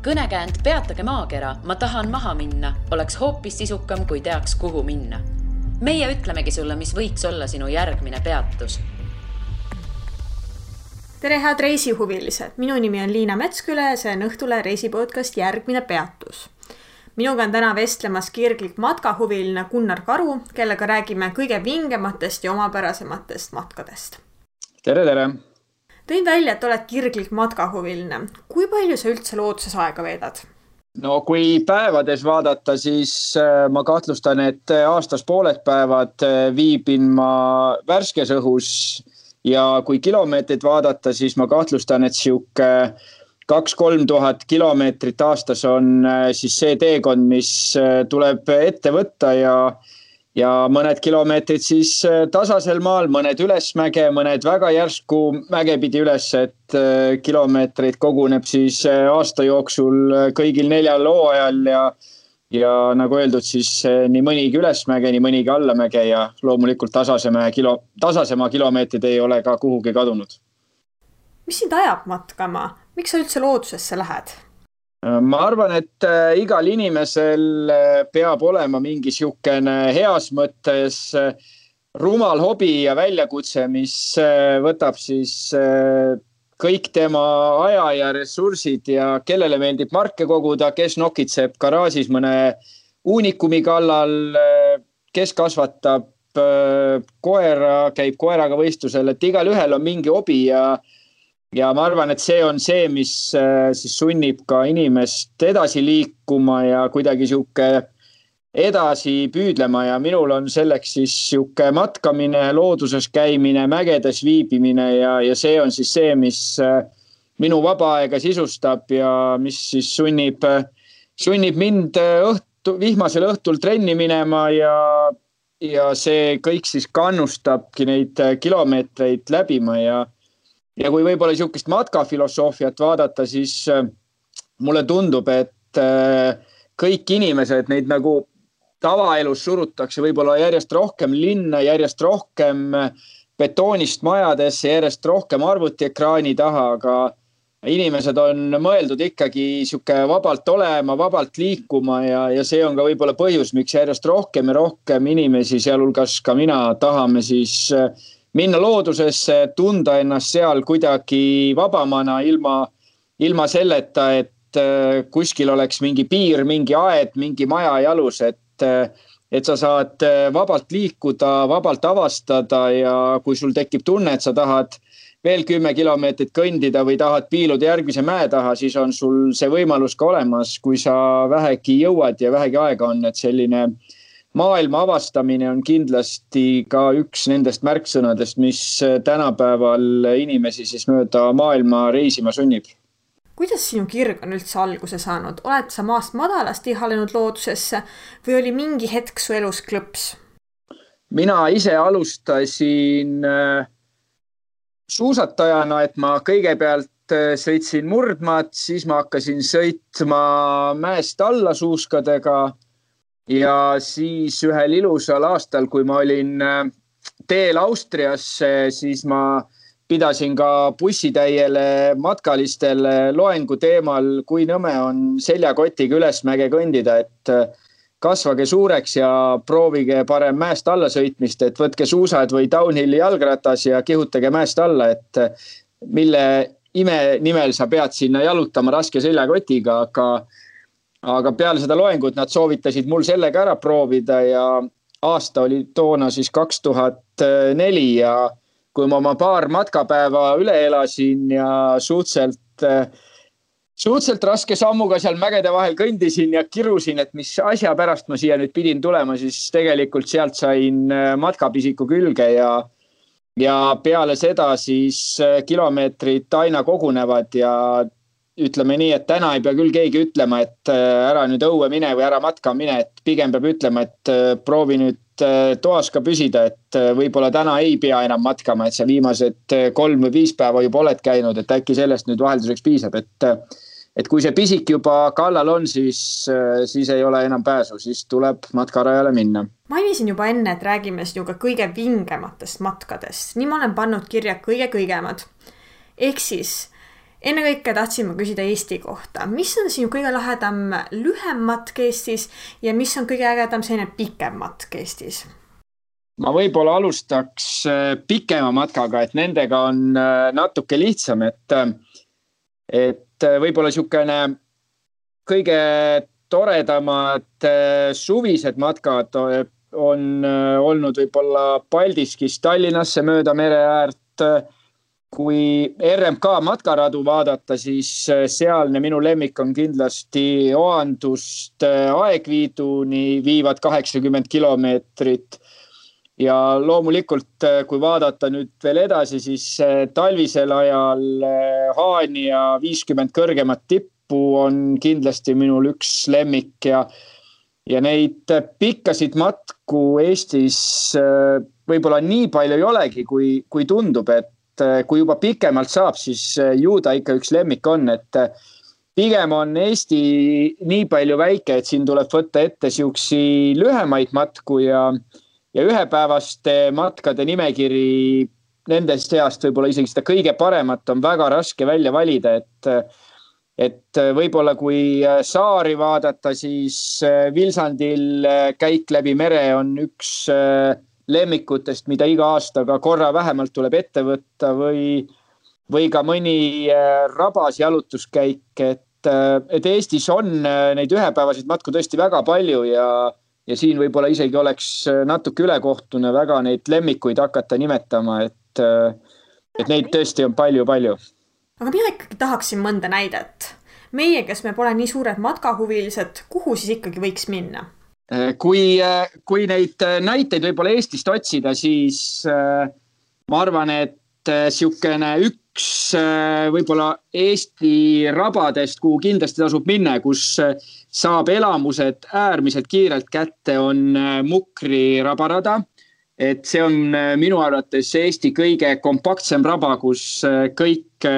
Kõnekäänd Peatage maakera, ma tahan maha minna, oleks hoopis sisukam, kui teaks, kuhu minna. Meie ütlemegi sulle, mis võiks olla sinu järgmine peatus. Tere, head reisihuvilised! Minu nimi on Liina Metsküle ja see on Õhtule reisipodcast Järgmine peatus. Minuga on täna vestlemas kirglik matkahuviline Gunnar Karu, kellega räägime kõige vingematest ja omapärasematest matkadest. Tere, tere! Tõin välja, et oled kirglik matkahuviline. Kui palju sa üldse looduses aega veedad? No kui päevades vaadata, siis ma kahtlustan, et aastas pooled päevad viibin ma värskes õhus ja kui kilomeetrit vaadata, siis ma kahtlustan, et siuke 2-3 tuhat kilomeetrit aastas on siis see teekond, mis tuleb ette võtta ja mõned kilomeetrid siis tasasel maal, mõned ülesmäge, mõned väga järsku mäge pidi üles, et kilomeetreid koguneb siis aasta jooksul kõigil 4 hooajal ja nagu öeldud, siis nii mõnigi ülesmäge, nii mõnigi allamäge ja loomulikult tasasema kilomeetrid ei ole ka kuhugi kadunud. Mis sind ajab matkama? Miks sa üldse loodusesse lähed? Ma arvan, et igal inimesel peab olema mingi siukene heas mõttes rumal hobi ja väljakutse, mis võtab siis kõik tema aja ja ressursid ja kellele meeldib marke koguda, kes nokitseb garaažis mõne uunikumi kallal, kes kasvatab koera, käib koeraga võistlusel, et igal ühel on mingi hobi ja ma arvan, et see on see, mis siis sunnib ka inimest edasi liikuma ja kuidagi siuke edasi püüdlema ja minul on selleks siis siuke matkamine, looduses käimine, mägedes viibimine ja see on siis see, mis minu vaba aega sisustab ja mis siis sunnib mind vihmasel õhtul trenni minema ja see kõik siis kannustabki neid kilomeetreid läbima ja kui võib-olla niisugust matkafilosoofiat vaadata, siis mulle tundub, et kõik inimesed, neid nagu tavaelus surutakse võib-olla järjest rohkem linna, järjest rohkem betoonist majadesse, järjest rohkem arvutiekraani taha, aga inimesed on mõeldud ikkagi niisugune vabalt olema, vabalt liikuma ja see on ka võib-olla põhjus, miks järjest rohkem ja rohkem inimesi, sealhulgas ka mina, tahame siis minna loodusesse, tunda ennast seal kuidagi vabamana ilma selleta, et kuskil oleks mingi piir, mingi aed, mingi maja jalus, et sa saad vabalt liikuda, vabalt avastada ja kui sul tekib tunne, et sa tahad veel 10 kilomeetrit kõndida või tahad piiluda järgmise mäe taha, siis on sul see võimalus ka olemas, kui sa vähegi jõuad ja vähegi aega on, et selline maailma avastamine on kindlasti ka üks nendest märksõnadest, mis tänapäeval inimesi siis mööda maailma reisima sunnib. Kuidas sinu kirg on üldse alguse saanud? Oled sa maast madalast ihalenud loodusesse või oli mingi hetk su elus klõps? Mina ise alustasin suusatajana, et ma kõigepealt sõitsin murdmaad, siis ma hakkasin sõitma mäest alla suuskadega ja siis ühel ilusal aastal, kui ma olin teel Austriasse, siis ma pidasin ka bussitäiele matkalistele loengu teemal, kui nõme on seljakotiga ülesmäge kõndida, et kasvage suureks ja proovige parem mäest alla sõitmist, et võtke suusad või downhilli jalgratas ja kihutage mäest alla, et mille ime nimel sa pead sinna jalutama raske seljakotiga, aga peale seda loengut nad soovitasid mul sellega ära proovida ja aasta oli toona siis 2004 ja kui ma oma paar matkapäeva üle elasin ja suhteliselt raske sammuga seal mägede vahel kõndisin ja kirusin, et mis asja pärast ma siia nüüd pidin tulema, siis tegelikult sealt sain matkapisiku külge ja peale seda siis kilomeetrid aina kogunevad ja ütleme nii, et täna ei pea küll keegi ütlema, et ära nüüd õue mine või ära matka mine, et pigem peab ütlema, et proovi nüüd toas ka püsida, et võib-olla täna ei pea enam matkama, et sa viimased 3 või 5 päeva juba oled käinud, et äkki sellest nüüd vahelduseks piisab, et kui see pisik juba kallal on, siis ei ole enam pääsu, siis tuleb matkarajale minna. Mainisin juba enne, et räägime sinuga kõige vingematest matkadest. Nii ma olen pannud kirja kõige kõigemad. Ehk siis Enne kõike tahtsime küsida Eesti kohta. Mis on sinu kõige lahedam lühem matk Eestis ja mis on kõige ägedam selline pikem matk Eestis? Ma võib-olla alustaks pikema matkaga, et nendega on natuke lihtsam, et võib-olla niisugune kõige toredamad suvised matkad on olnud võib-olla Paldiskis Tallinnasse mööda mere äärt. Kui RMK matkaradu vaadata, siis sealne minu lemmik on kindlasti Oandust Aegviiduni viivad 80 kilomeetrit. Ja loomulikult, kui vaadata nüüd veel edasi, siis talvisel ajal Haanja 50 kõrgemat tippu on kindlasti minul üks lemmik ja neid pikkasid matku Eestis võib-olla nii palju ei olegi, kui tundub, et kui juba pikemalt saab, siis ju ta ikka üks lemmik on, et pigem on Eesti nii palju väike, et siin tuleb võtta ette siuksi lühemaid matku ja ühepäevaste matkade nimekiri nendest seast võib-olla isegi seda kõige paremat on väga raske välja valida, et võib-olla kui saari vaadata, siis Vilsandil käik läbi mere on üks lemmikutest, mida iga aastaga korra vähemalt tuleb ette võtta või ka mõni rabas jalutuskäik, et Eestis on neid ühepäevasid matku tõesti väga palju ja siin võib-olla isegi oleks natuke ülekohtune väga neid lemmikuid hakata nimetama, et neid tõesti on palju. Aga mina ikkagi tahaksin mõnda näidet. Meie, kes me pole nii suured matkahuvilised, kuhu siis ikkagi võiks minna? Kui neid näiteid võib-olla Eestist otsida, siis ma arvan, et siukene üks võib-olla Eesti rabadest, kuhu kindlasti tasub minna, kus saab elamused äärmiselt kiirelt kätte, on Mukri rabarada. Et see on minu arvates Eesti kõige kompaktsem raba, kus kõik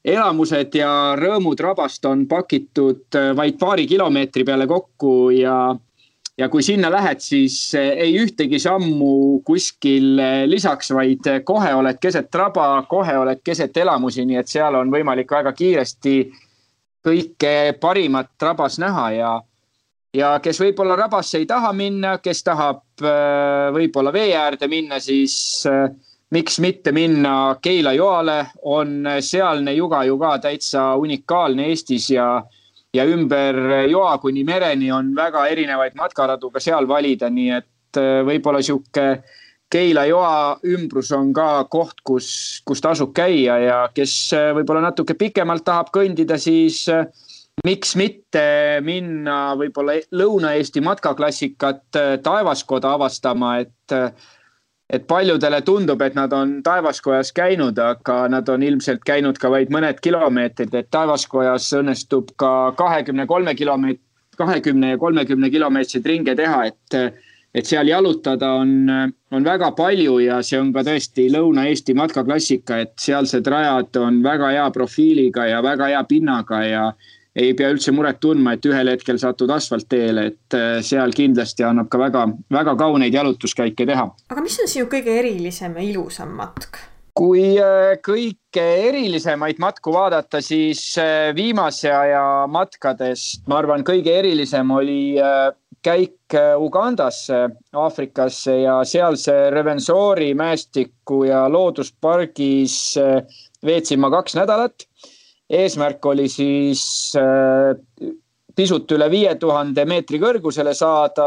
elamused ja rõõmud rabast on pakitud vaid paari kilomeetri peale kokku ja kui sinna lähed, siis ei ühtegi sammu kuskil lisaks, vaid kohe oled keset raba, kohe oled keset elamusi, nii et seal on võimalik väga kiiresti kõike parimat rabas näha ja kes võib-olla rabasse ei taha minna, kes tahab võib-olla vee äärde minna, siis miks mitte minna Keila joale, on sealne juga ju ka täitsa unikaalne Eestis ja ümber joa kuni mereni on väga erinevaid matkaradu ka seal valida, nii et võib-olla siuke Keila joa ümbrus on ka koht, kus tasub käia ja kes võib-olla natuke pikemalt tahab kõndida, siis miks mitte minna võib-olla Lõuna-Eesti matkaklassikat Taevaskoda avastama, et paljudele tundub, et nad on Taevaskojas käinud, aga nad on ilmselt käinud ka vaid mõned kilomeetrid, et Taevaskojas õnnestub ka 20 ja 30 kilomeetrid ringe teha, et seal jalutada on väga palju ja see on ka tõesti Lõuna-Eesti matkaklassika, et sealsed rajad on väga hea profiiliga ja väga hea pinnaga ja ei pea üldse muret tundma, et ühel hetkel satud asfaltteele, et seal kindlasti annab ka väga, väga kauneid jalutuskäike teha. Aga mis on sinu kõige erilisem ja ilusam matk? Kui kõige erilisemaid matku vaadata, siis viimase aja matkadest, ma arvan, kõige erilisem oli käik Ugandasse, Aafrikasse ja sealse Rwenzori mäestiku ja looduspargis veetsin ma 2 nädalat. Eesmärk oli siis pisut üle 5000 meetri kõrgusele saada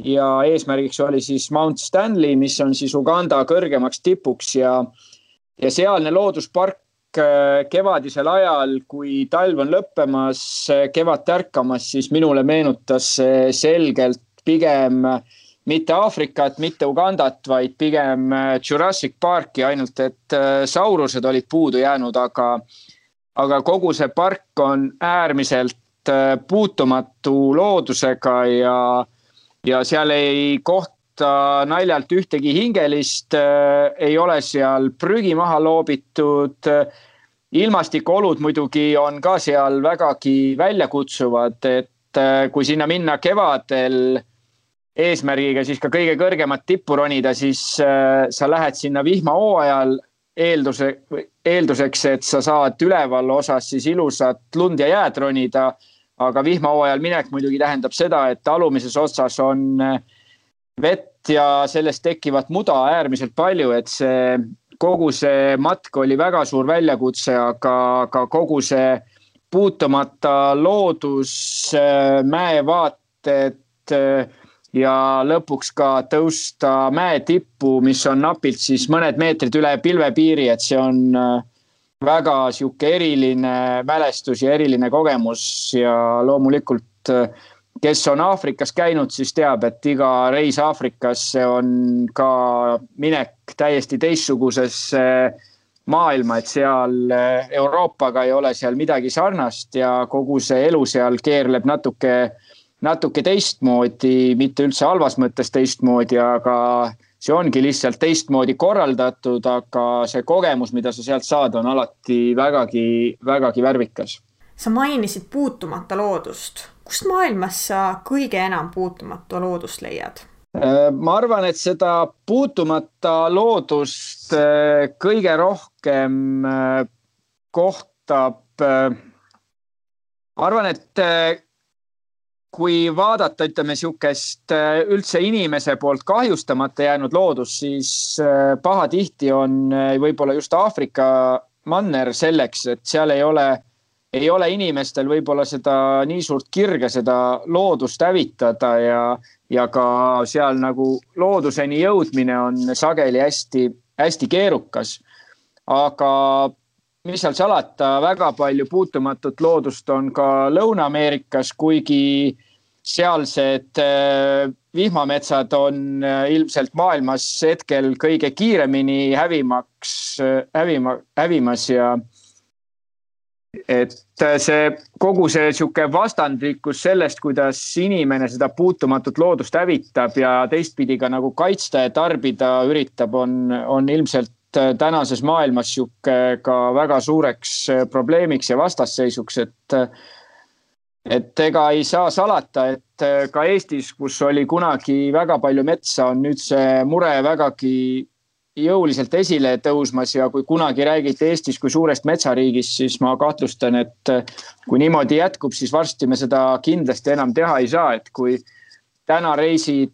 ja eesmärgiks oli siis Mount Stanley, mis on siis Uganda kõrgemaks tipuks ja sealne looduspark kevadisel ajal, kui talv on lõppemas, kevad tärkamas, siis minule meenutas selgelt pigem mitte Aafrikat, mitte Ugandat, vaid pigem Jurassic Parki, ainult et saurused olid puudu jäänud, aga kogu see park on äärmiselt puutumatu loodusega ja seal ei kohta naljalt ühtegi hingelist, ei ole seal prügi maha loobitud. Ilmastikuolud muidugi on ka seal vägagi väljakutsuvad, et kui sinna minna kevadel eesmärgiga siis ka kõige kõrgemat tippu ronida, siis sa lähed sinna vihmahooajal eelduseks, et sa saad üleval osas siis ilusat lund ja jääd ronida, aga vihmahooajal minek muidugi tähendab seda, et alumises otsas on vett ja sellest tekivat muda äärmiselt palju, et kogu see matk oli väga suur väljakutse, aga kogu see puutumata loodus, mäevaated ja lõpuks ka tõusta mäe tippu, mis on napilt siis mõned meetrid üle pilvepiiri, et see on väga sihuke eriline mälestus ja eriline kogemus ja loomulikult, kes on Aafrikas käinud, siis teab, et iga reis Aafrikasse on ka minek täiesti teistsugusesse maailma, et seal Euroopaga ei ole seal midagi sarnast ja kogu see elu seal keerleb natuke teistmoodi, mitte üldse halvas mõttes teistmoodi, aga see ongi lihtsalt teistmoodi korraldatud, aga see kogemus, mida sa sealt saad, on alati vägagi värvikas. Sa mainisid puutumata loodust. Kust maailmas sa kõige enam puutumata loodust leiad? Ma arvan, et seda puutumata loodust kõige rohkem kohtab. Arvan, et kui vaadata, ütleme siukest üldse inimese poolt kahjustamata jäänud loodus, siis pahatihti on võib-olla just Aafrika manner selleks, et seal ei ole inimestel võib-olla seda nii suurt kirge seda loodust hävitada ja ka seal nagu looduseni jõudmine on sageli hästi keerukas. Aga mis seal salata, väga palju puutumatut loodust on ka Lõuna-Ameerikas, kuigi sealsed vihmametsad on ilmselt maailmas hetkel kõige kiiremini hävimas ja et kogu see sihuke vastandlikkus sellest, kuidas inimene seda puutumatut loodust hävitab ja teistpidi ka nagu kaitsta ja tarbida üritab, on ilmselt tänases maailmas sihuke ka väga suureks probleemiks ja vastasseisuks, et ega ei saa salata, et ka Eestis, kus oli kunagi väga palju metsa, on nüüd see mure vägagi jõuliselt esile tõusmas ja kui kunagi räägiti Eestis kui suurest metsariigist, siis ma kahtlustan, et kui niimoodi jätkub, siis varsti me seda kindlasti enam teha ei saa, et kui täna reisid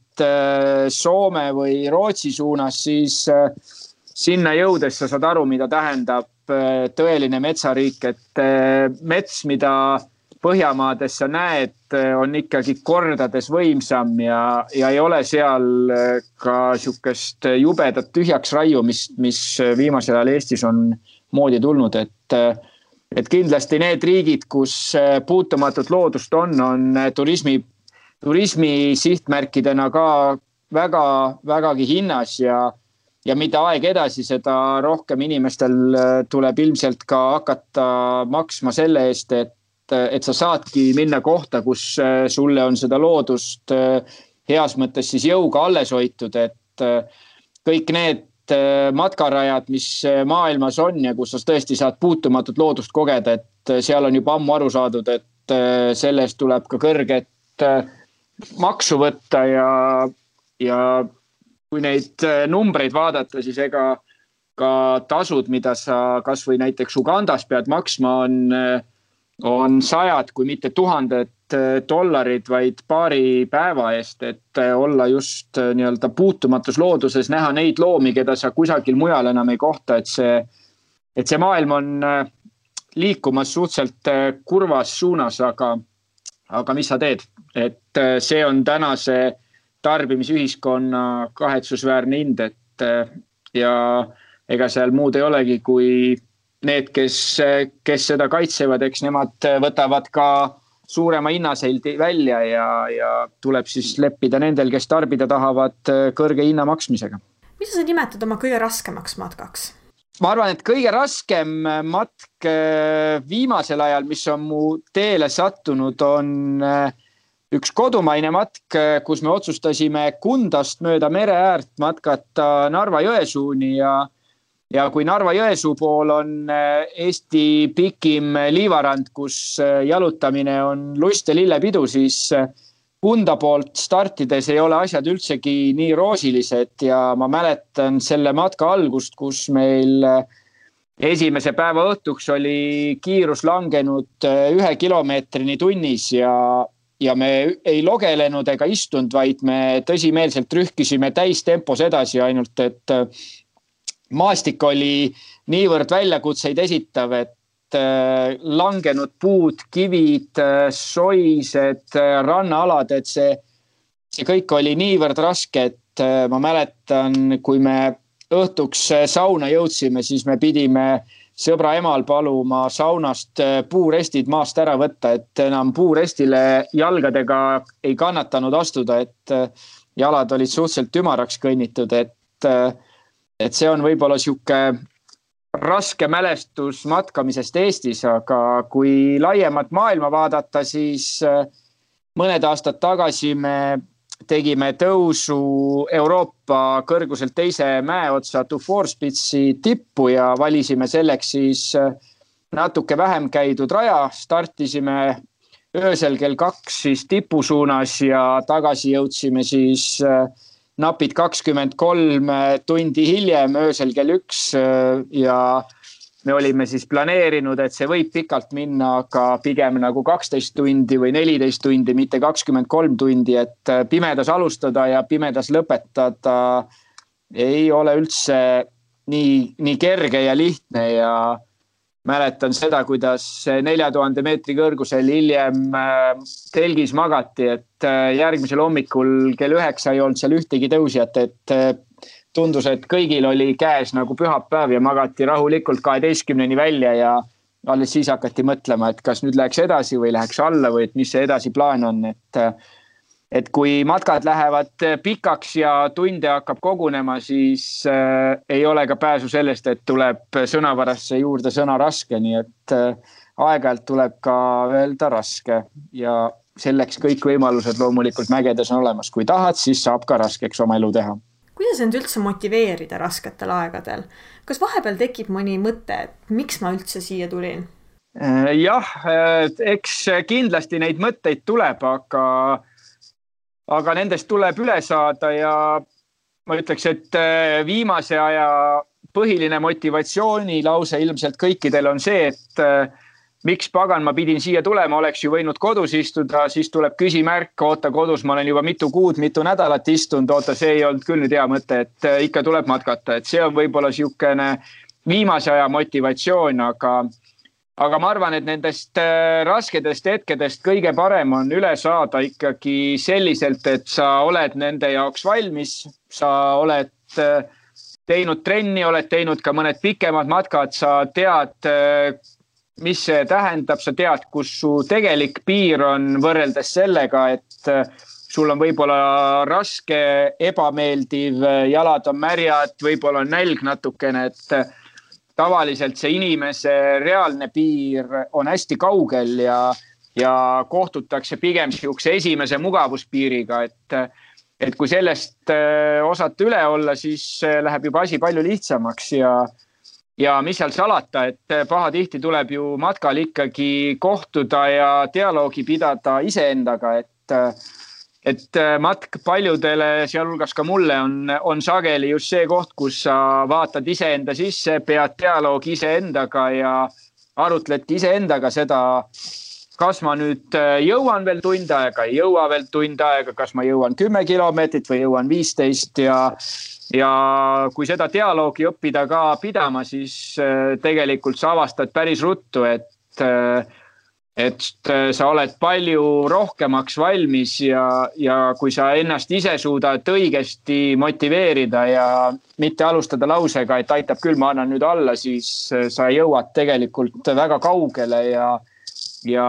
Soome või Rootsi suunas, siis sinna jõudes sa saad aru, mida tähendab tõeline metsariik, et mets, mida Põhjamaades sa näed, on ikkagi kordades võimsam ja ei ole seal ka sihukest jubedat tühjaks raiumist, mis viimasel ajal Eestis on moodi tulnud, et kindlasti need riigid, kus puutumatut loodust on turismi sihtmärkidena ka vägagi hinnas ja mida aeg edasi, seda rohkem inimestel tuleb ilmselt ka hakata maksma selle eest, et sa saadki minna kohta, kus sulle on seda loodust heas mõttes siis jõuga alles hoitud, et kõik need matkarajad, mis maailmas on ja kus sa tõesti saad puutumatut loodust kogeda, et seal on juba ammu aru saadud, et selle eest tuleb ka kõrget maksu võtta ja kui neid numbreid vaadata, siis ega ka tasud, mida sa kas või näiteks Ugandas pead maksma, on sajad, kui mitte $1000, vaid paari päeva eest, et olla just nii-öelda puutumatus looduses, näha neid loomi, keda sa kusagil mujal enam ei kohta, et see maailm on liikumas suhteliselt kurvas suunas, aga mis sa teed? Et see on tänase tarbimisühiskonna kahetsusväärne hind, ja ega seal muud ei olegi, kui need, kes seda kaitsevad, eks nemad võtavad ka suurema hinnaseldi välja ja tuleb siis leppida nendel, kes tarbida tahavad kõrge hinna maksmisega. Mida sa nimetad oma kõige raskemaks matkaks? Ma arvan, et kõige raskem matk viimasel ajal, mis on mu teele sattunud, on üks kodumaine matk, kus me otsustasime Kundast mööda mere äärt matkata Narva-Jõesuuni ja kui Narva-Jõesuu pool on Eesti pikim liivarand, kus jalutamine on lust ja lillepidu, siis Kunda poolt startides ei ole asjad üldsegi nii roosilised ja ma mäletan selle matka algust, kus meil esimese päeva õhtuks oli kiirus langenud 1 kilomeetrini tunnis ja me ei logelenud ega istunud, vaid me tõsimeelselt rühkisime täistempos edasi, ainult et maastik oli niivõrd väljakutseid esitav, et langenud puud, kivid, soised, rannaalad, et see kõik oli niivõrd raske, et ma mäletan, kui me õhtuks sauna jõudsime, siis me pidime sõbra emal paluma saunast puurestid maast ära võtta, et enam puurestile jalgadega ei kannatanud astuda, et jalad olid suhteliselt ümaraks kõnnitud, et see on võib-olla sihuke raske mälestus matkamisest Eestis, aga kui laiemat maailma vaadata, siis mõned aastad tagasi me tegime tõusu Euroopa kõrguselt teise mäeotsa Dufourspitsi tippu ja valisime selleks siis natuke vähem käidud raja. Startisime öösel kell 2 siis tipu suunas ja tagasi jõudsime siis napid 23 tundi hiljem öösel kell 1 ja me olime siis planeerinud, et see võib pikalt minna, aga pigem nagu 12 tundi või 14 tundi, mitte 23 tundi, et pimedas alustada ja pimedas lõpetada ei ole üldse nii kerge ja lihtne ja mäletan seda, kuidas 4000 meetri kõrgusel hiljem telgis magati, et järgmisel hommikul kell 9 ei olnud seal ühtegi tõusjat, et tundus, et kõigil oli käes nagu pühapäev ja magati rahulikult 12-ni välja ja alles siis hakati mõtlema, et kas nüüd läheks edasi või läheks alla või et mis see edasi plaan on, et kui matkad lähevad pikaks ja tunde hakkab kogunema, siis ei ole ka pääsu sellest, et tuleb sõnavarasse juurde sõna raske, nii et aeg-ajalt tuleb ka öelda raske ja selleks kõik võimalused loomulikult mägedes on olemas. Kui tahad, siis saab ka raskeks oma elu teha. Kuidas end üldse motiveerida rasketel aegadel? Kas vahepeal tekib mõni mõte, et miks ma üldse siia tulin? Jah, eks kindlasti neid mõtteid tuleb, aga nendest tuleb üle saada ja ma ütleks, et viimase aja põhiline motivatsioonilause ilmselt kõikidel on see, et miks pagan ma pidin siia tulema, oleks ju võinud kodus istuda, siis tuleb küsimärk, oota kodus, ma olen juba mitu kuud, mitu nädalat istunud, oota, see ei olnud küll nüüd hea mõte, et ikka tuleb matkata, et see on võib-olla siukene viimase aja motivatsioon, aga ma arvan, et nendest raskedest hetkedest kõige parem on üle saada ikkagi selliselt, et sa oled nende jaoks valmis, sa oled teinud trenni, oled teinud ka mõned pikemad matkad, sa tead, mis see tähendab, sa tead, kus su tegelik piir on võrreldes sellega, et sul on võib-olla raske, ebameeldiv, jalad on märjad, võib-olla on nälg natukene, et tavaliselt see inimese reaalne piir on hästi kaugel ja kohtutakse pigem siukse esimese mugavuspiiriga, et kui sellest osata üle olla, siis läheb juba asi palju lihtsamaks ja mis seal salata, et pahatihti tuleb ju matkal ikkagi kohtuda ja dialoogi pidada iseendaga, et matk paljudele, sealhulgas ka mulle, on sageli just see koht, kus sa vaatad iseenda sisse, pead dialoogi iseendaga ja arutledki iseendaga seda, kas ma nüüd jõuan veel tund aega, ei jõua veel tund aega, kas ma jõuan 10 kilomeetrit või jõuan 15 ja kui seda dialoogi õppida ka pidama, siis tegelikult sa avastad päris ruttu, et sa oled palju rohkemaks valmis ja kui sa ennast ise suudad õigesti motiveerida ja mitte alustada lausega, et aitab küll, ma annan nüüd alla, siis sa jõuad tegelikult väga kaugele ja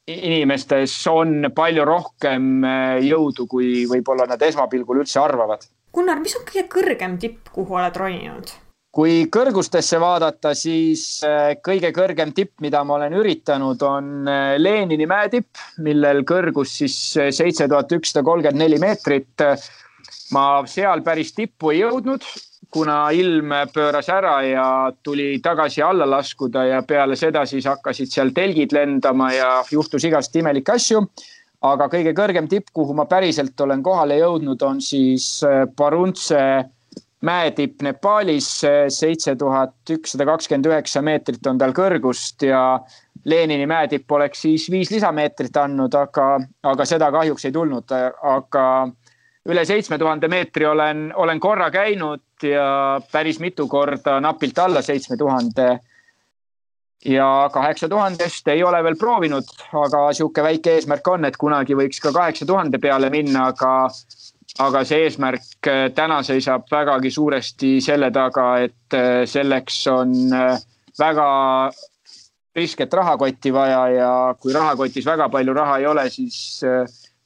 inimestes on palju rohkem jõudu, kui võib-olla nad esmapilgul üldse arvavad. Gunnar, mis on kõige kõrgem tipp, kuhu oled roninud? Kui kõrgustesse vaadata, siis kõige kõrgem tipp, mida ma olen üritanud, on Lenini mäetipp, millel kõrgus siis 7134 meetrit. Ma seal päris tippu ei jõudnud, kuna ilm pööras ära ja tuli tagasi alla laskuda ja peale seda siis hakkasid seal telgid lendama ja juhtus igast imelikke asju. aga kõige kõrgem tipp, kuhu ma päriselt olen kohale jõudnud, on siis Paruntse mäetipp Nepaalis. 7129 meetrit on tal kõrgust ja Lenini mäetipp oleks siis 5 lisameetrit andnud, aga seda kahjuks ei tulnud. Aga üle 7000 meetri olen korra käinud ja päris mitu korda napilt alla 7000 ja 8000-st ei ole veel proovinud, aga sihuke väike eesmärk on, et kunagi võiks ka 8000 peale minna, aga see eesmärk täna seisab vägagi suuresti selle taga, et selleks on väga risket rahakotti vaja ja kui rahakotis väga palju raha ei ole, siis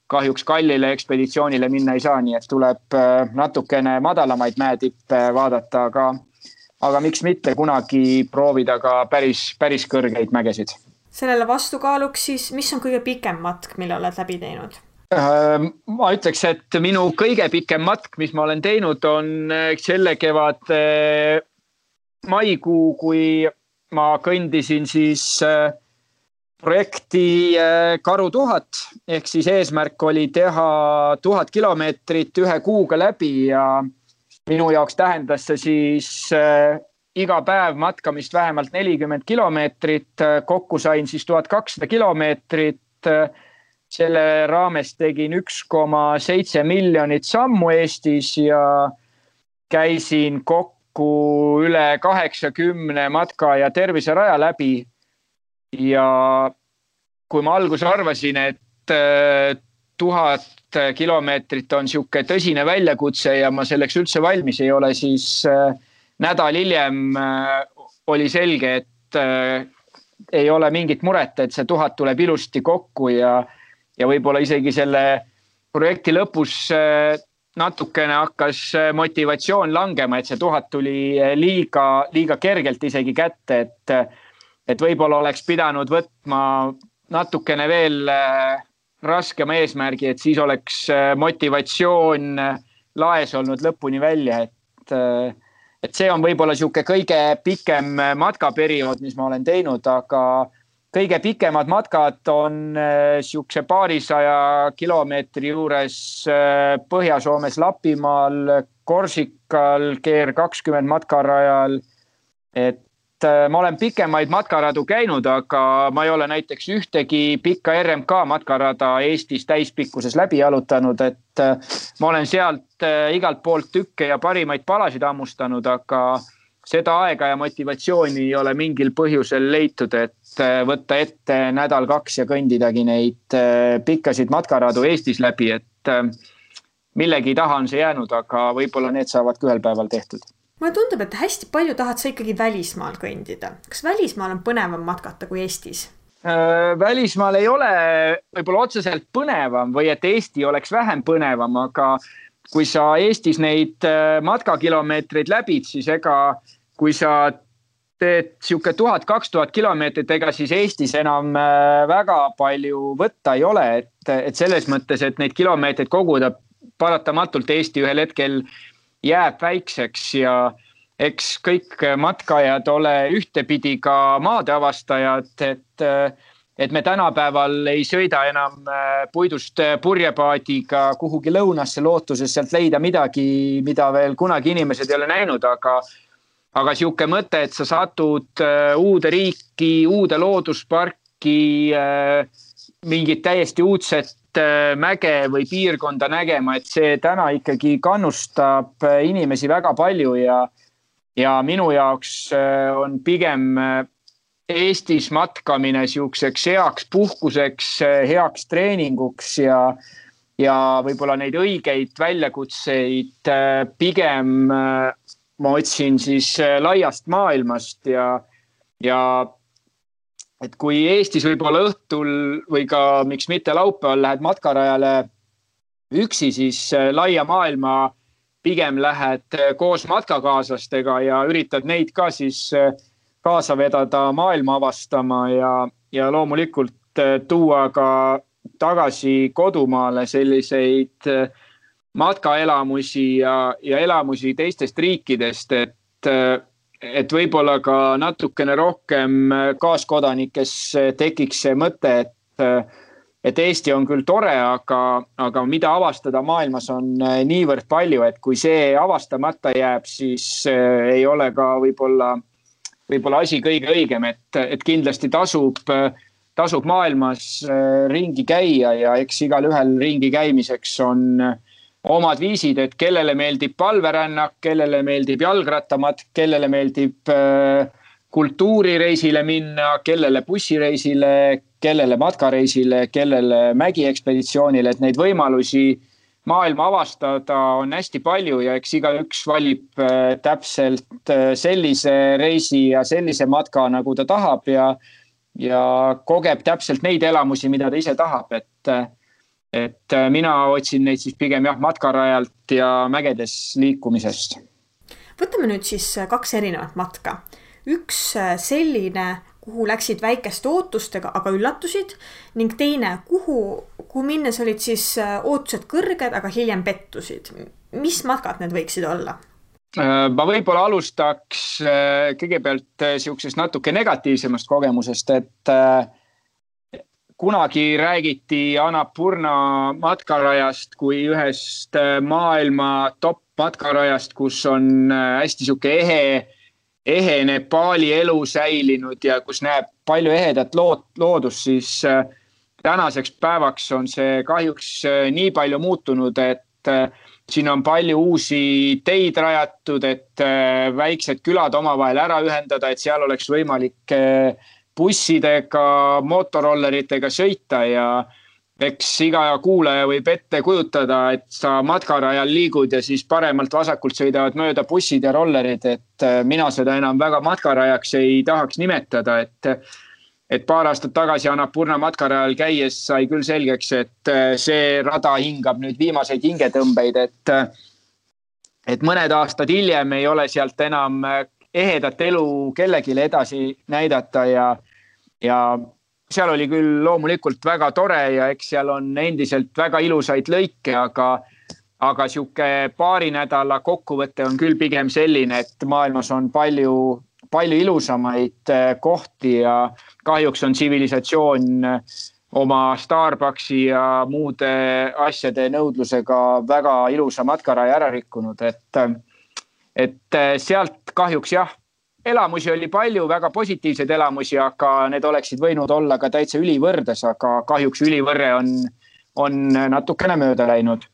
kahjuks kallile ekspeditsioonile minna ei saa, nii et tuleb natukene madalamaid mäetippe vaadata, aga miks mitte kunagi proovida ka päris kõrgeid mägesid. Sellele vastukaaluks siis, mis on kõige pikem matk, mille oled läbi teinud? Ma ütleks, et minu kõige pikem matk, mis ma olen teinud, on selle kevad maikuu, kui ma kõndisin siis projekti Karu 1000 ehk siis eesmärk oli teha 1000 kilomeetrit 1 kuuga läbi ja minu jaoks tähendas see siis iga päev matkamist vähemalt 40 kilomeetrit. Kokku sain siis 1200 kilomeetrit. Selle raames tegin 1,7 miljonit sammu Eestis ja käisin kokku üle 80 matka- ja terviseraja läbi. Ja kui ma alguses arvasin, et 1000 kilomeetrit on sihuke tõsine väljakutse ja ma selleks üldse valmis ei ole, siis nädal hiljem oli selge, et ei ole mingit muret, et see 1000 tuleb ilusti kokku ja võib-olla isegi selle projekti lõpus natukene hakkas motivatsioon langema, et see 1000 tuli liiga kergelt isegi kätte, et võib-olla oleks pidanud võtma natukene veel raskema eesmärgi, et siis oleks motivatsioon laes olnud lõpuni välja, et see on võib-olla sihuke kõige pikem matkaperiood, mis ma olen teinud, aga kõige pikemad matkad on siukse 200 kilomeetri juures Põhja-Soomes Lapimaal, Korsikal, GR20 matkarajal, et ma olen pikemaid matkaradu käinud, aga ma ei ole näiteks ühtegi pikka RMK matkarada Eestis täispikkuses läbi jalutanud, et ma olen sealt igalt poolt tükke ja parimaid palasid ammustanud, aga seda aega ja motivatsiooni ei ole mingil põhjusel leitud, et võtta ette nädal-2 ja kõndidagi neid pikkasid matkaradu Eestis läbi, et millegi taha on see jäänud, aga võib-olla need saavad ka ühel päeval tehtud. Mulle tundub, et hästi palju tahad sa ikkagi välismaal kõndida. Kas välismaal on põnevam matkata kui Eestis? Välismaal ei ole võib-olla otseselt põnevam või et Eesti oleks vähem põnevam, aga kui sa Eestis neid matkakilomeetreid läbid, siis ega kui sa teed sihuke 1000-2000 kilomeetrit, ega siis Eestis enam väga palju võtta ei ole, et selles mõttes, et neid kilomeetreid koguda paratamatult Eesti ühel hetkel jääb väikseks ja eks kõik matkajad ole ühtepidi ka maadeavastajad, et me tänapäeval ei sõida enam puidust purjepaadiga kuhugi lõunasse lootuses sealt leida midagi, mida veel kunagi inimesed ei ole näinud, aga sihuke mõte, et sa satud uude riiki, uude loodusparki, mingit täiesti uudset mäge või piirkonda nägema, et see täna ikkagi kannustab inimesi väga palju ja minu jaoks on pigem Eestis matkamine siukseks heaks puhkuseks, heaks treeninguks ja võib-olla neid õigeid väljakutseid pigem ma otsin siis laiast maailmast ja et kui Eestis võib-olla õhtul või ka miks mitte laupäeval lähed matkarajale üksi, siis laia maailma pigem lähed koos matkakaaslastega ja üritad neid ka siis kaasa vedada maailma avastama ja loomulikult tuua ka tagasi kodumaale selliseid matkaelamusi ja elamusi teistest riikidest, et võib-olla ka natukene rohkem kaaskodanikes tekiks see mõte, et Eesti on küll tore, aga mida avastada maailmas on niivõrd palju, et kui see avastamata jääb, siis ei ole ka võib-olla asi kõige õigem, et kindlasti tasub maailmas ringi käia ja eks igal ühel ringi käimiseks on omad viisid, et kellele meeldib palverännak, kellele meeldib jalgrattamatk, kellele meeldib kultuurireisile minna, kellele bussireisile, kellele matkareisile, kellele mägiekspeditsioonile, et neid võimalusi maailma avastada on hästi palju ja eks igaüks valib täpselt sellise reisi ja sellise matka, nagu ta tahab ja kogeb täpselt neid elamusi, mida ta ise tahab, et mina otsin neid siis pigem matkarajalt ja mägedes liikumisest. Võtame nüüd siis 2 erinevat matka. Üks selline, kuhu läksid väikeste ootustega, aga üllatusid, ning teine, kuhu minnes olid siis ootused kõrged, aga hiljem pettusid. Mis matkad need võiksid olla? Ma võib-olla alustaks kõigepealt siuksest natuke negatiivsemast kogemusest, et kunagi räägiti Annapurna matkarajast kui ühest maailma top matkarajast, kus on hästi siuke ehe Nepaali elu säilinud ja kus näeb palju ehedat loodust, siis tänaseks päevaks on see kahjuks nii palju muutunud, et siin on palju uusi teid rajatud, et väiksed külad omavahel ära ühendada, et seal oleks võimalik bussidega, motorolleritega sõita ja eks iga kuulaja võib ette kujutada, et sa matkarajal liigud ja siis paremalt vasakult sõidavad mööda bussid ja rollerid, et mina seda enam väga matkarajaks ei tahaks nimetada, et paar aastat tagasi Annapurna matkarajal käies sai küll selgeks, et see rada hingab nüüd viimaseid hingetõmbeid, et mõned aastad hiljem ei ole sealt enam ehedat elu kellelegi edasi näidata ja seal oli küll loomulikult väga tore ja eks seal on endiselt väga ilusaid lõike, aga siuke paari nädala kokkuvõte on küll pigem selline, et maailmas on palju ilusamaid kohti ja kahjuks on tsivilisatsioon oma Starbucksi ja muude asjade nõudlusega väga ilusa matkaraja ära rikkunud, et sealt kahjuks elamusi oli palju, väga positiivseid elamusi, aga need oleksid võinud olla ka täitsa ülivõrdes, aga kahjuks ülivõrre on natukene mööda läinud.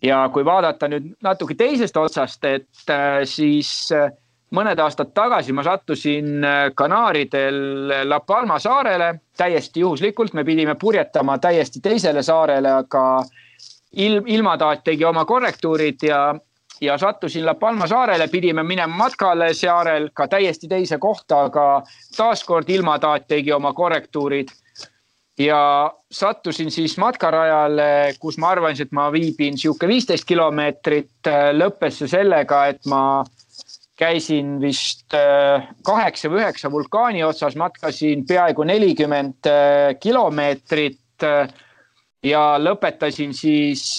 Ja kui vaadata nüüd natuke teisest otsast, et siis mõned aastad tagasi ma sattusin Kanaaridel La Palma saarele, täiesti juhuslikult, me pidime purjetama täiesti teisele saarele, aga ilmataat tegi oma korrektuurid ja sattusin La Palma saarele, pidime minema matkale saarel ka täiesti teise kohta, aga taaskord ilmataat tegi oma korrektuurid ja sattusin siis matkarajale, kus ma arvasin, et ma viibin siuke 15 kilomeetrit, lõppes see sellega, et ma käisin vist 8 või 9 vulkaani otsas, matkasin peaaegu 40 kilomeetrit ja lõpetasin siis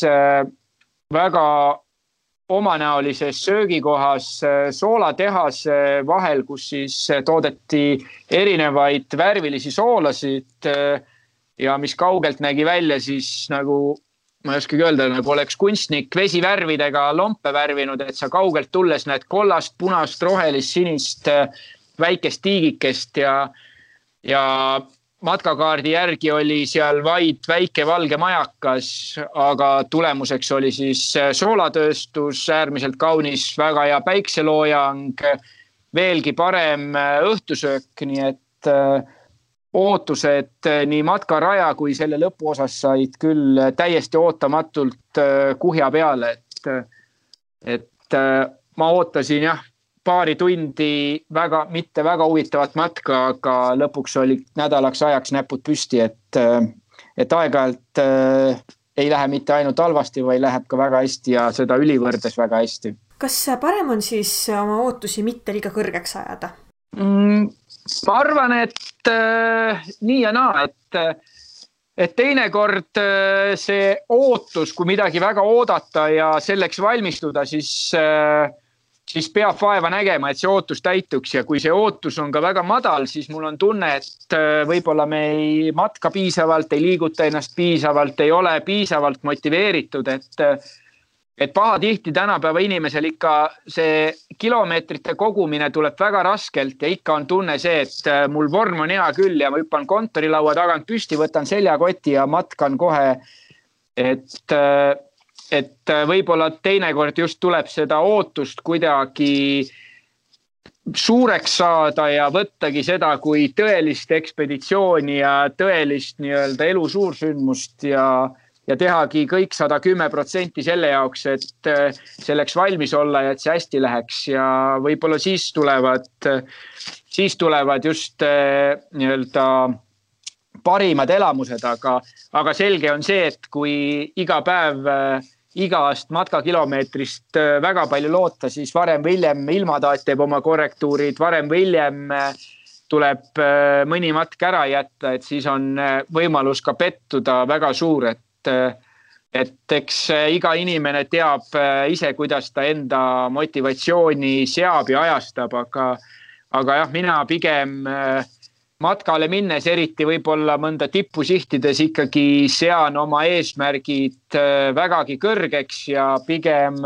väga omanäolises söögikohas soolatehase vahel, kus siis toodeti erinevaid värvilisi soolasid ja mis kaugelt nägi välja siis nagu, ma ei oskagi öelda, nagu oleks kunstnik vesivärvidega lompe värvinud, et sa kaugelt tulles näed kollast, punast, rohelist, sinist, väikest tiigikest ja matkakaardi järgi oli seal vaid väike valge majakas, aga tulemuseks oli siis soolatööstus, äärmiselt kaunis, väga hea päikseloojang, veelgi parem õhtusöök, nii et ootused nii matkaraja kui selle lõpuosas said küll täiesti ootamatult kuhja peale, et ma ootasin paari tundi mitte väga huvitavat matka, aga lõpuks oli nädalaks ajaks näpud püsti, et aeg-ajalt ei lähe mitte ainult halvasti, vaid läheb ka väga hästi ja seda ülivõrdes väga hästi. Kas parem on siis oma ootusi mitte liiga kõrgeks ajada? Ma arvan, et nii ja naa, et teinekord see ootus, kui midagi väga oodata ja selleks valmistuda, siis siis peab vaeva nägema, et see ootus täituks ja kui see ootus on ka väga madal, siis mul on tunne, et võib-olla me ei matka piisavalt, ei liiguta ennast piisavalt, ei ole piisavalt motiveeritud, et pahatihti tänapäeva inimesel ikka see kilomeetrite kogumine tuleb väga raskelt ja ikka on tunne see, et mul vorm on hea küll ja ma hüppan kontorilaua tagant püsti, võtan seljakoti ja matkan kohe, et võib-olla teinekord just tuleb seda ootust kuidagi suureks saada ja võttagi seda kui tõelist ekspeditsiooni ja tõelist nii-öelda elu suursündmust ja tehagi kõik 110% selle jaoks, et selleks valmis olla ja et see hästi läheks ja võib-olla siis tulevad just nii-öelda parimad elamused, aga selge on see, et kui iga päev igast matkakilomeetrist väga palju loota, siis varem või hiljem ilmataat teeb oma korrektuurid, varem või hiljem tuleb mõni matk ära jätta, et siis on võimalus ka pettuda väga suur, et eks iga inimene teab ise, kuidas ta enda motivatsiooni seab ja ajastab, aga jah, mina pigem matkale minnes, eriti võib-olla mõnda tippu sihtides ikkagi sean oma eesmärgid vägagi kõrgeks ja pigem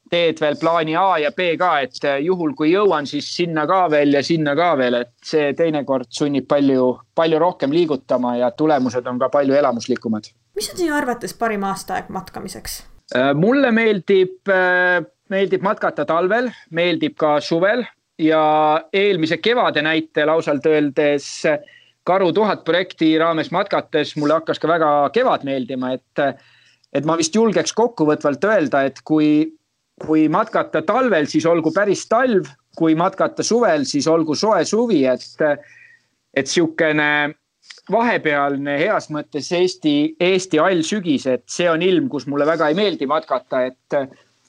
teed veel plaani A ja B ka, et juhul kui jõuan, siis sinna ka veel ja sinna ka veel, et see teinekord sunnib palju rohkem liigutama ja tulemused on ka palju elamuslikumad. Mis on sinu arvates parim aastaaeg matkamiseks? Mulle meeldib matkata talvel, meeldib ka suvel ja eelmise kevade näite lausalt öeldes Karu 1000 projekti raames matkates mulle hakkas ka väga kevad meeldima, et ma vist julgeks kokkuvõtvalt öelda, et kui matkata talvel, siis olgu päris talv, kui matkata suvel, siis olgu soe suvi, et siukene vahepealne heas mõttes Eesti all sügis, et see on ilm, kus mulle väga ei meeldi matkata, et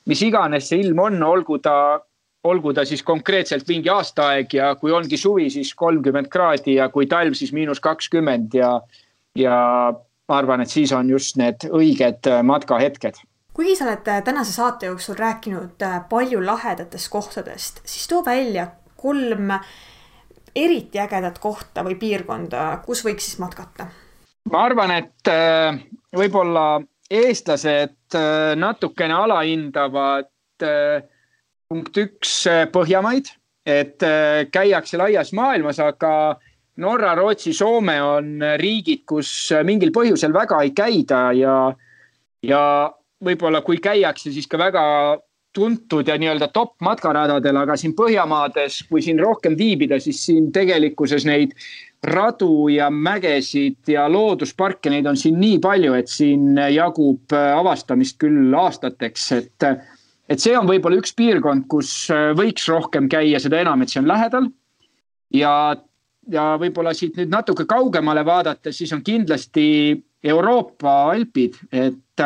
mis iganes see ilm on, olgu ta siis konkreetselt mingi aastaaeg ja kui ongi suvi, siis 30 kraadi ja kui talv, siis -20 ja ma arvan, et siis on just need õiged matkahetked. Kuigi sa oled tänase saate jooksul rääkinud palju lahedatest kohtadest, siis too välja 3 eriti ägedat kohta või piirkonda, kus võiks siis matkata? Ma arvan, et võib-olla eestlased natukene alahindavad punkt 1 Põhjamaid, et käiakse laias maailmas, aga Norra, Rootsi, Soome on riigid, kus mingil põhjusel väga ei käida ja võib-olla kui käiakse, siis ka väga tuntud ja nii-öelda top matkaradadel, aga siin Põhjamaades, kui siin rohkem viibida, siis siin tegelikkuses neid radu ja mägesid ja loodusparke, neid on siin nii palju, et siin jagub avastamist küll aastateks, et see on võib-olla üks piirkond, kus võiks rohkem käia, seda enam, et see on lähedal ja võib-olla siit nüüd natuke kaugemale vaadates, siis on kindlasti Euroopa Alpid, et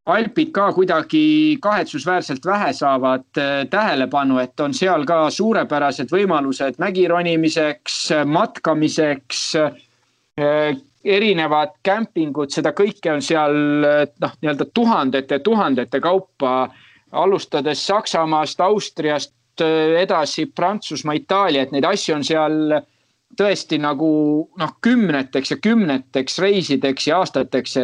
Alpid ka kuidagi kahetsusväärselt vähe saavad tähelepanu, et on seal ka suurepärased võimalused mägironimiseks, matkamiseks, erinevad kämpingud, seda kõike on seal nii-öelda tuhandete kaupa, alustades Saksamaast, Austriast, edasi Prantsusmaa, Itaalia, et neid asju on seal tõesti nagu kümneteks ja kümneteks reisideks ja aastateks,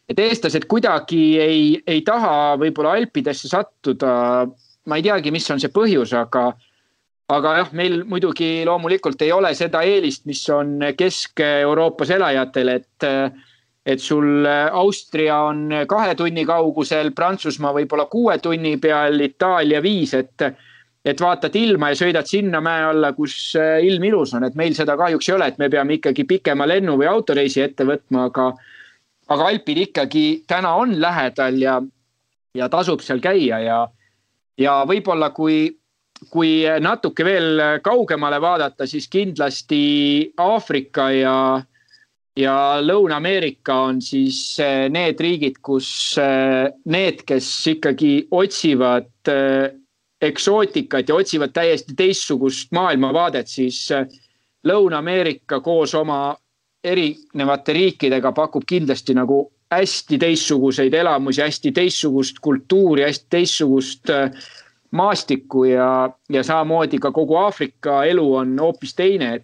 et eestlased kuidagi ei taha võib-olla Alpidesse sattuda. Ma ei teagi, mis on see põhjus, aga jah, meil muidugi loomulikult ei ole seda eelist, mis on Kesk-Euroopas elajatel, et sul Austria on 2 tunni kaugusel, Prantsusmaa võib-olla 6 tunni peal, Itaalia 5, et vaatad ilma ja sõidad sinna mäe alla, kus ilm ilus on, et meil seda kahjuks ei ole, et me peame ikkagi pikema lennu või autoreisi ette võtma, aga Alpid ikkagi täna on lähedal ja tasub seal käia ja võib-olla kui natuke veel kaugemale vaadata, siis kindlasti Aafrika ja Lõuna-Ameerika on siis need riigid, kus need, kes ikkagi otsivad eksootikat ja otsivad täiesti teistsugust maailmavaadet, siis Lõuna-Ameerika koos oma erinevate riikidega pakub kindlasti nagu hästi teistsuguseid elamusi, hästi teistsugust kultuuri, hästi teistsugust maastikku ja samamoodi ka kogu Aafrika elu on hoopis teine,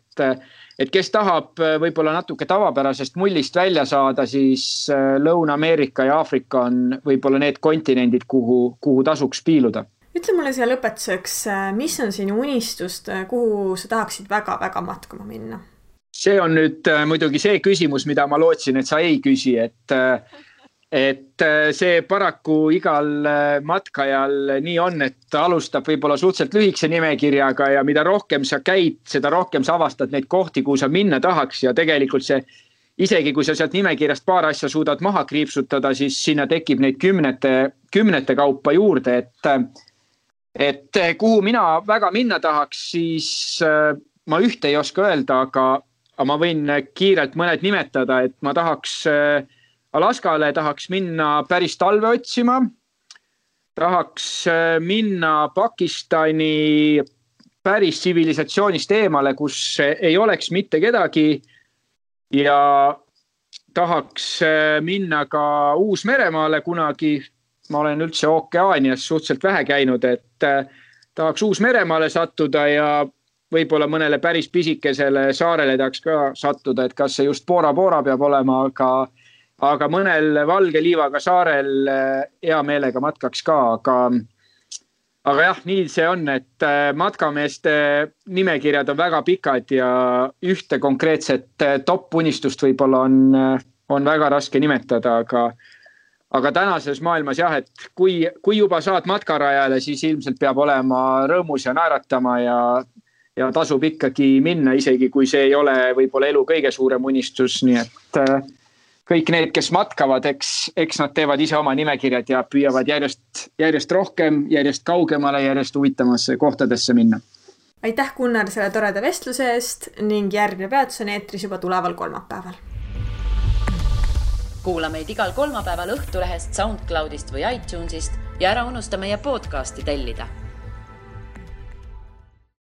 et kes tahab võib-olla natuke tavapärasest mullist välja saada, siis Lõuna-Ameerika ja Aafrika on võib-olla need kontinendid, kuhu tasuks piiluda. Ütle mulle siia lõpetuseks, mis on sinu unistust, kuhu sa tahaksid väga-väga matkama minna? See on nüüd muidugi see küsimus, mida ma lootsin, et sa ei küsi, et see paraku igal matkajal nii on, et alustab võib-olla suhteliselt lühikese nimekirjaga ja mida rohkem sa käid, seda rohkem sa avastad neid kohti, kuhu sa minna tahaks ja tegelikult see, isegi kui sa sealt nimekirjast paar asja suudad maha kriipsutada, siis sinna tekib neid kümnete kaupa juurde, et kuhu mina väga minna tahaks, siis ma ühte ei oska öelda, aga ma võin kiirelt mõned nimetada, et ma tahaks Alaskale, tahaks minna päris talve otsima, tahaks minna Pakistani päris tsivilisatsioonist eemale, kus ei oleks mitte kedagi ja tahaks minna ka Uus-Meremaale kunagi. Ma olen üldse ookeaanias suhteliselt vähe käinud, et tahaks Uus-Meremaale sattuda ja võib-olla mõnele päris pisikesele saarele tahaks ka sattuda, et kas see just Bora Bora peab olema, aga mõnel valge liivaga saarel hea meelega matkaks ka, aga jah, nii see on, et matkameeste nimekirjad on väga pikad ja ühte konkreetset top-unistust võib-olla on väga raske nimetada, aga tänases maailmas jah, et kui juba saad matkarajale, siis ilmselt peab olema rõõmus ja naeratama ja tasub ikkagi minna, isegi kui see ei ole võib-olla elu kõige suurem unistus, nii et kõik need, kes matkavad, eks nad teevad ise oma nimekirjad ja püüavad järjest rohkem, järjest kaugemale, järjest huvitamasse kohtadesse minna. Aitäh, Gunnar, selle toreda vestluse eest ning järgmine peatus on eetris juba tuleval kolmapäeval. Kuula meid igal kolmapäeval Õhtulehest, SoundCloudist või iTunesist ja ära unusta meie podcasti tellida.